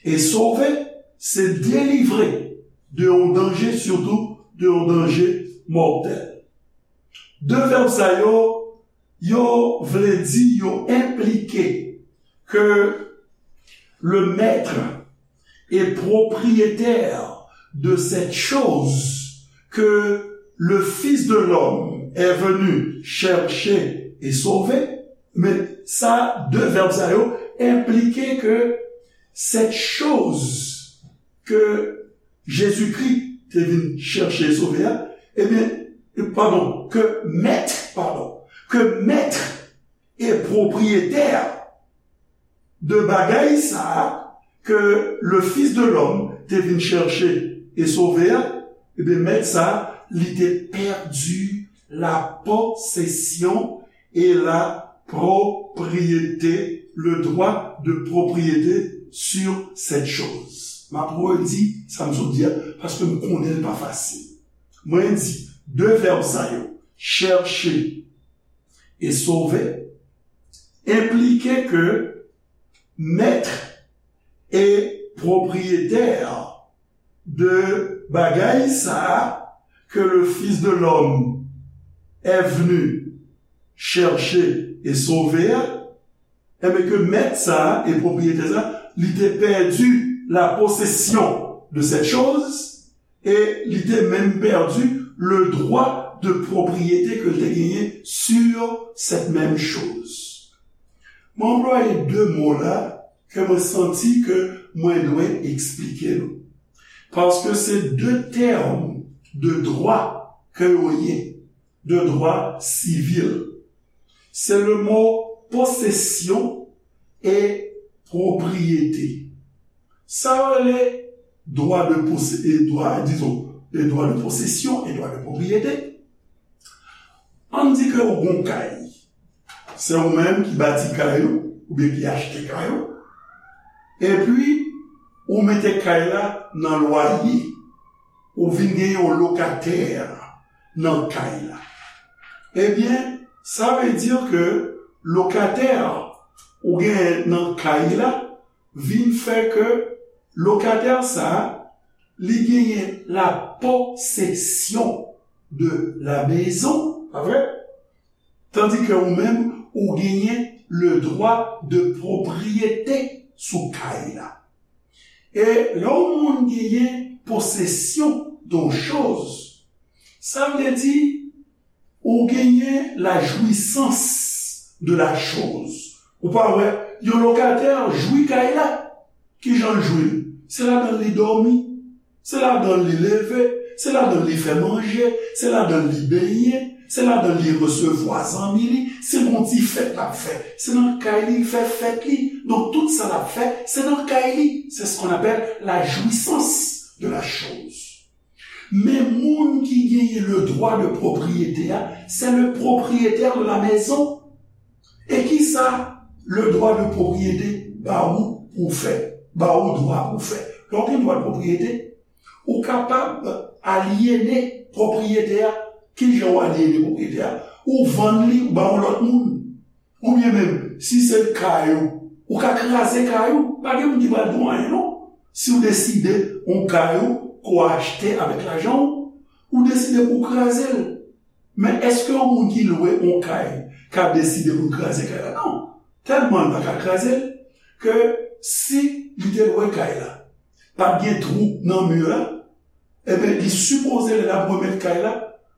E sove, se delivre de yon danje, sitou de yon danje mòtèl. De vèb sa yo, yo vle di, yo enplike ke le maître et propriétaire de cette chose que le Fils de l'homme est venu chercher et sauver. Men sa, de vèb sa yo enplike ke cette chose que Jésus-Christ te vin chèche e sove a, ebyen, padon, ke mèt, padon, ke mèt e pwopriyetè de bagay sa a ke le Fils de l'homme te vin chèche e sove a, ebyen, mèt sa a, li te pèdi la possession et la propriété, le droit de propriété sur cette chose. M ap redi sa m sot di a, paske m konnen l pa fasil. Mwen di, de vèb sa yo, chèche e sove, enplike ke mèt e pwopriyetè de bagay sa a ke le Fils de l'homme est venu chercher et sauver a, enben ke mèt sa a e pwopriyetè sa a, li te pèdi la possession de cette chose, e li te menm pèdi le droit de propriété ke l te genyen sur cette même chose. Mwen anplwaye de mo la ke mwen santi ke mwen dwe eksplike nou. Paske se de tèm de dwa ke yo ye, de dwa sivil. Se le mo possession e propriété. Sa yo rele dwa de pose-, e dwa, dizon, e dwa de possession e dwa de propriété. Ann di ke ou gon kay. Se ou menm ki bati kay ou, oubyen ki achte kay ou. Epi, ou mete kay la nan lwaye. Ou vin gen yon lokatè nan kay la. Ebyen, sa vle di ke lokatè ou genyen nan kay la vin fè ke lokatè sa a, li genyen la possession de la maison, pa vre? Tandi ke ou menm, ou genyen le droit de propriété sou kay la. E lè yon moun genyen posesyon de yon choz, sa vle di ou genyen la jouissance de la chose. Ou pa wè, yon lokatè jwi kay la. Kijan l jwi l? Se ladan l li dòmi, se ladan l li leve, se ladan l li fè manje, se ladan l li benyen, se ladan l li resevwa zanmi li, se gon ti fèt l ap fè, se nan kay li l fè fèt li. Donk, tout sa l ap fè, se nan kay li. C'est ce qu'on appelle la jouissance de la chose. Men moun ki genyen le droit de propriété a, c'est le propriétaire de la maison. E kisa le droit de propriété ba ou pou w fè, ba ou dwa pou w fè? Lè w gen dwa de pwopriyete, ou kapab alyene pwopriyete a. Kijan w alyene pwopriyete a? Ou vann li, ou ba yon lòt moun. Oubyen menm, si se kay ou, ou ka kraze kay ou, pa gen moun ki pral di w anyen non. Si w deside yon kay ou ke w achte avèk lajan w, ou deside pou w kraze l. Men èske yon moun ki lwe yon kay ka deside pou l kraze kay la? Non. Tèlman l pa ka kraze l, ke si li te lwe kay la, pa t gen twou nan mi la, ebyen, li sipoze lè l ap remèt kay la,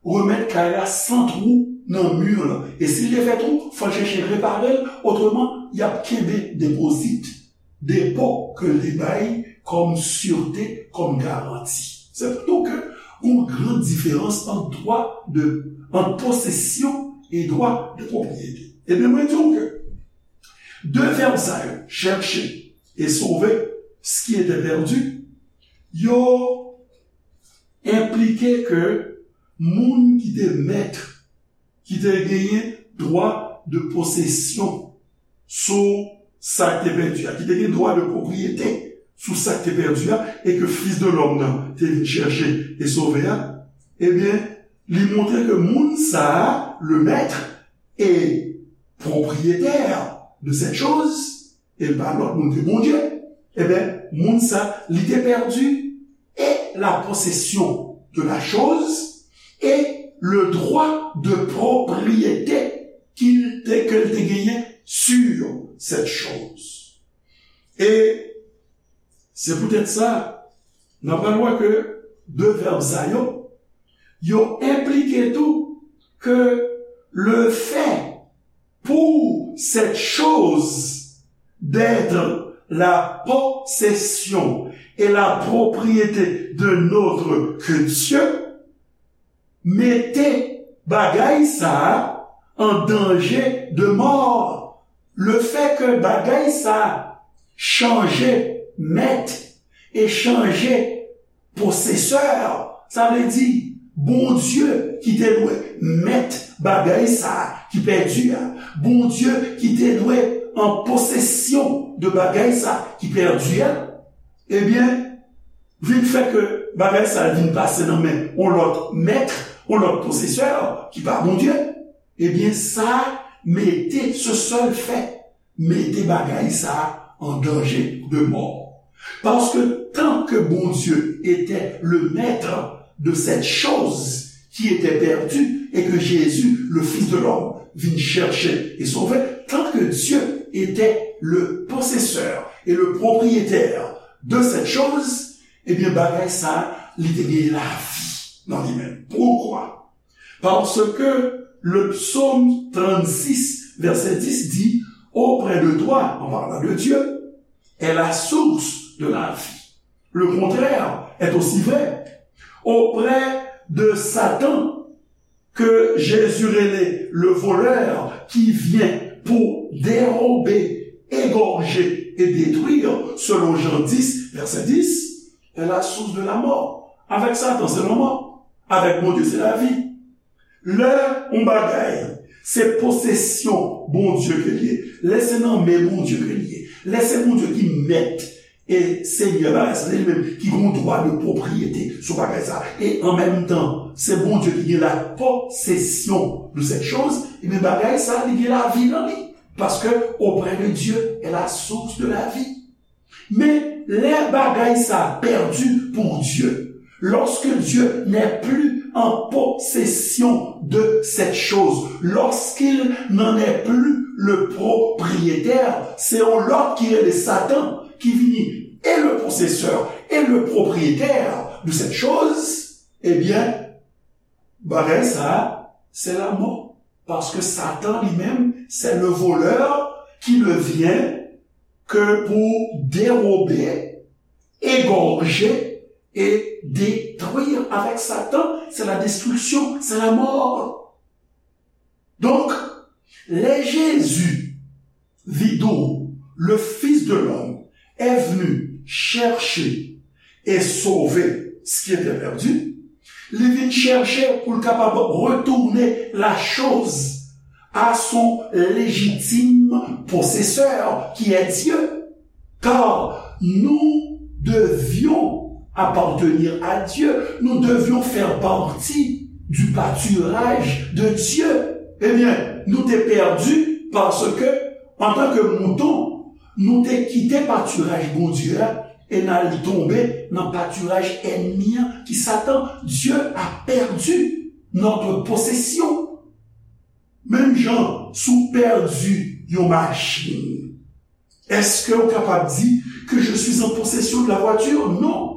remèt kay la san twou, nan mi lan. E si l te fè twou, fò l chèche repare l, otreman, y ap kenbe depozit, depo ke l te bay kòm sirte, kòm garanti. Se pou nou ke yon gran diferans ant dwa de, ant posesyon e dwa de pwopriyete. Ebyen, mwen di w ke de vèb sa yo, chercher et sauver ce qui était perdu, yo enplike ke moun ki te mèt, ki te genyen dwa de posesyon sou sa k te pèdi a, ki te gen dwa de pwopriyete sou sa k te pèdi a, e ke Fis de Lòm nan te vin chèche e sove a, ebyen, li montre ke moun sa a, le maître et propriétaire de cette chose, e l pa lòt moun ke Bondye, ebyen, moun sa, li te pèdi et la possession de la chose et le droit de propriété qu'il te, ke l te genyen sur cette chose. E se poutèt sa, n ap pral wè ke de vèb sa yo, yo enplike tou ke le fait pour cette chose d'être la possession et la propriété d'un autre que Dieu, mete bagay sa a an danje de mò. Le fait que bagay sa a chanje mèt e chanje posesè, sa vle di, Bondye ki te dwe mèt bagay sa a ki pèdi a, Bondye ki te dwe an posesyon de bagay sa a ki pèdi a, ebyen, vin fè ke bagay sa a vin pase nan men yon lòt mèt, yon lòt posesè ki pa Bondye, ebyen, sa mete, ce seul fait, mete bagay sa a an danje de mò. Paske tant que Bondye était le maître de cette chose qui était perdue et que Jésus, le Fils de l'homme, vint chercher et sauver, tant que Dieu était le possesseur et le propriétaire de cette chose, ebyen, bagay sa a, li te gen lavi nan li menm. Poukwa? Parce que le psaume trente-six, verset dix dit, auprès de toi, en parlant de Dieu, est la source de la vie. Le contraire est aussi vrai. Auprès de Satan, que Jésus rele le voleur qui vient pour dérober, égorger et détruire, selon Jean dix, verset dix, est la source de la mort. Avec Satan, c'est la mort. Avec Bondye, c'est la vie. Lè yon bagay, se posesyon Bondye ke li ye, lè se nan men Bondye ke li ye, lè se Bondye ki mèt e Senyè bagay sa, se li menm ki gen dwa de pwopriyete sou bagay sa. E an menm tan, se Bondye ki gen la posesyon de cette chose, ebyen bagay sa, li gen lavi nan li. Paske auprès de Dieu est la source de la vie. Men lè bagay sa pèdi pou Dye, lorsque Dieu n'est plus en possession de cette chose, lorsqu'il n'en est plus le propriétaire, se yon lòt ki rele Satan ki vini et le possesseur et le propriétaire de cette chose, ebyen, bagay sa, se lanmò. Paske Satan li menm, c'est le voleur qui ne vient que pour dérober, égorger et détruire. Avec Satan, c'est la destruction, c'est la mort. Donc, lè Jezi, vidou, le Fils de l'homme, est venu chercher et sauver ce qui était perdu, li vin chèche pou l kapab retounen la chose à son légitime possesseur, qui est Dieu. Car nous devions appartenir à Dieu, nous devions faire partie du pâturage de Dieu. Ebyen, nou te pèdi paske, antanke mouton, nou te kite patiraj Bondye a e n al tonbe nan patiraj ènmi an ki Satan. Dieu a perdu notre possession. Menm jan, si w pèdi yon machin, est-ce que w kapab di que je suis en possession de la voiture? Non.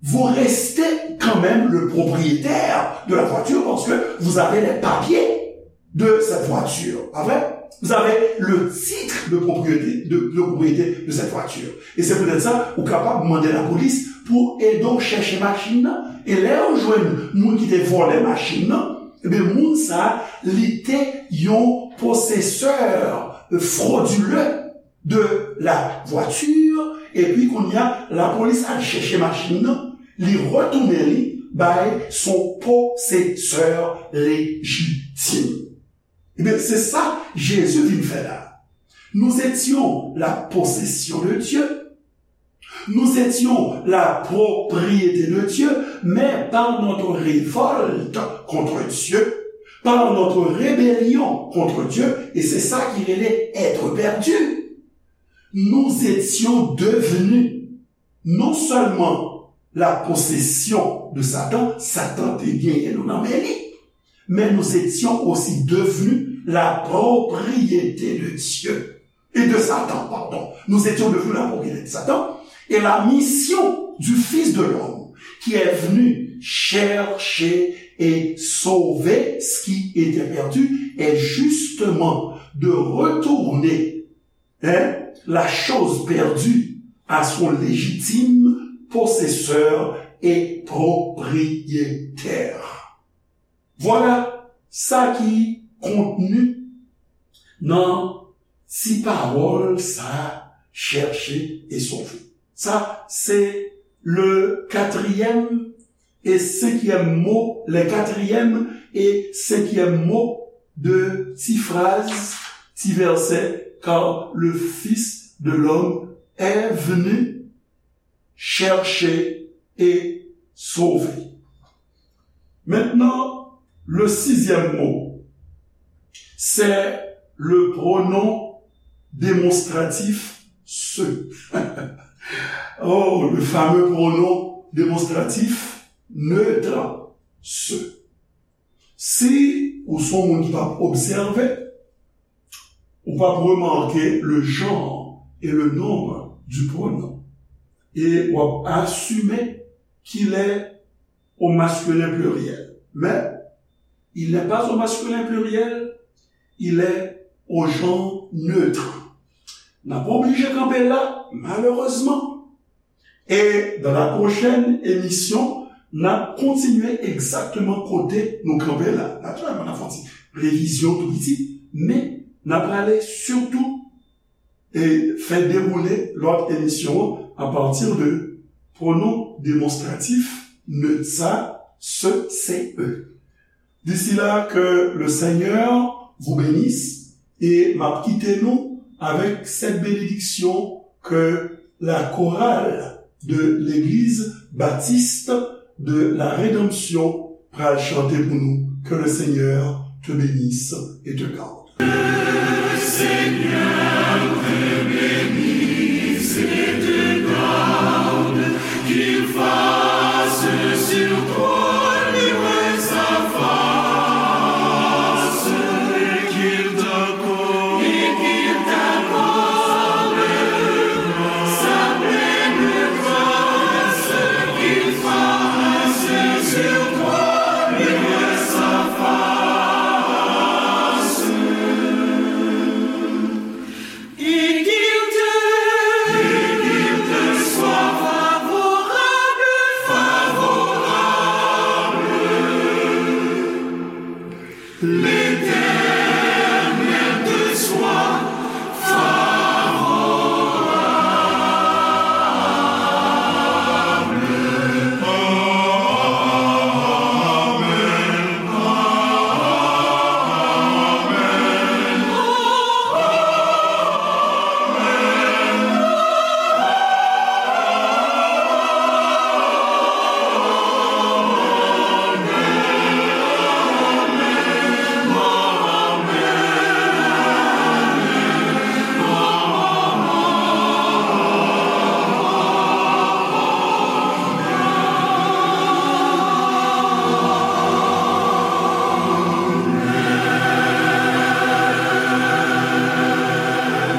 Vous restez quand même le propriétaire de la voiture parce que vous avez les papiers de cette voiture. Pas vrai? Vous avez le titre de propriété, de, de propriété de cette voiture. Et c'est peut-être ça, ou kapab mande lapolis pou ede w chèche machin nan. E lè yo jwenn moun ki te vòlè machin nan, ebyen, moun sa a, li te yon posesè fwodile de la voiture, epi kounye a, lapolis al chèche machin nan, li retounen li bay son posesè lejitim. Ebyen, se sa Jezi vin fè la. Nous étions la possession de Dieu. Nous étions la propriété de Dieu, mais par notre révolte contre Dieu, par notre rébellion contre Dieu, et c'est ça qui relève être perdu, nous étions devenus non seulement la possession de Satan, Satan te genyen nou nan men li, mais nous étions aussi devenus la propriété de Dieu et de Satan, pardon. Nous étions devenus la propriété de Satan et la mission du Fils de l'homme qui est venu chercher et sauver ce qui était perdu est justement de retourner, hein, la chose perdue à son légitime possesseur et propriétaire. Vwala sa ki kontni nan ti pawòl sa a, chèche e sove. Sa se le katriyèm e senkyèm mo, les quatrième et cinquième mots de ti fraz, ti vèsè, car le Fils de l'homme est venu chercher et sauver. Maintenant, le sixième mot, c'est le pronom démonstratif ce. Oh, le fameux pronom démonstratif neutre ce. Si ou se yon moun ki p ap obsève, ou p ap remake le genre et le nombre du pronom. E w ap asime qu'il est au masculin pluriel. Mais il n'est pas au masculin pluriel, il est au genre neutre. N ap oblije kanpe la, malerezman. E dans la prochaine émission, n ap kontinye egzakteman kote nou kanpe la. Natirèlman, n ap fè yon ti revizyon tou piti, men n ap prale sitou e fè dewoule lòt emisyon an apati de pronom demonstratif neutre sa, ce, ce, e. D'ici là, que le Seigneur vous bénisse et m ap kite nou avec cette bénédiction que la chorale de l'église baptiste de la Rédemption pral chante pou nou. Que le Seigneur te bénisse et te garde. Le Seigneur te bénisse et te garde, qu'il fasse sur toi luire sa face, et qu'il t'accorde, et qu'il t'accorde sa pleine grâce, qu'il fasse sur toi luire sa face.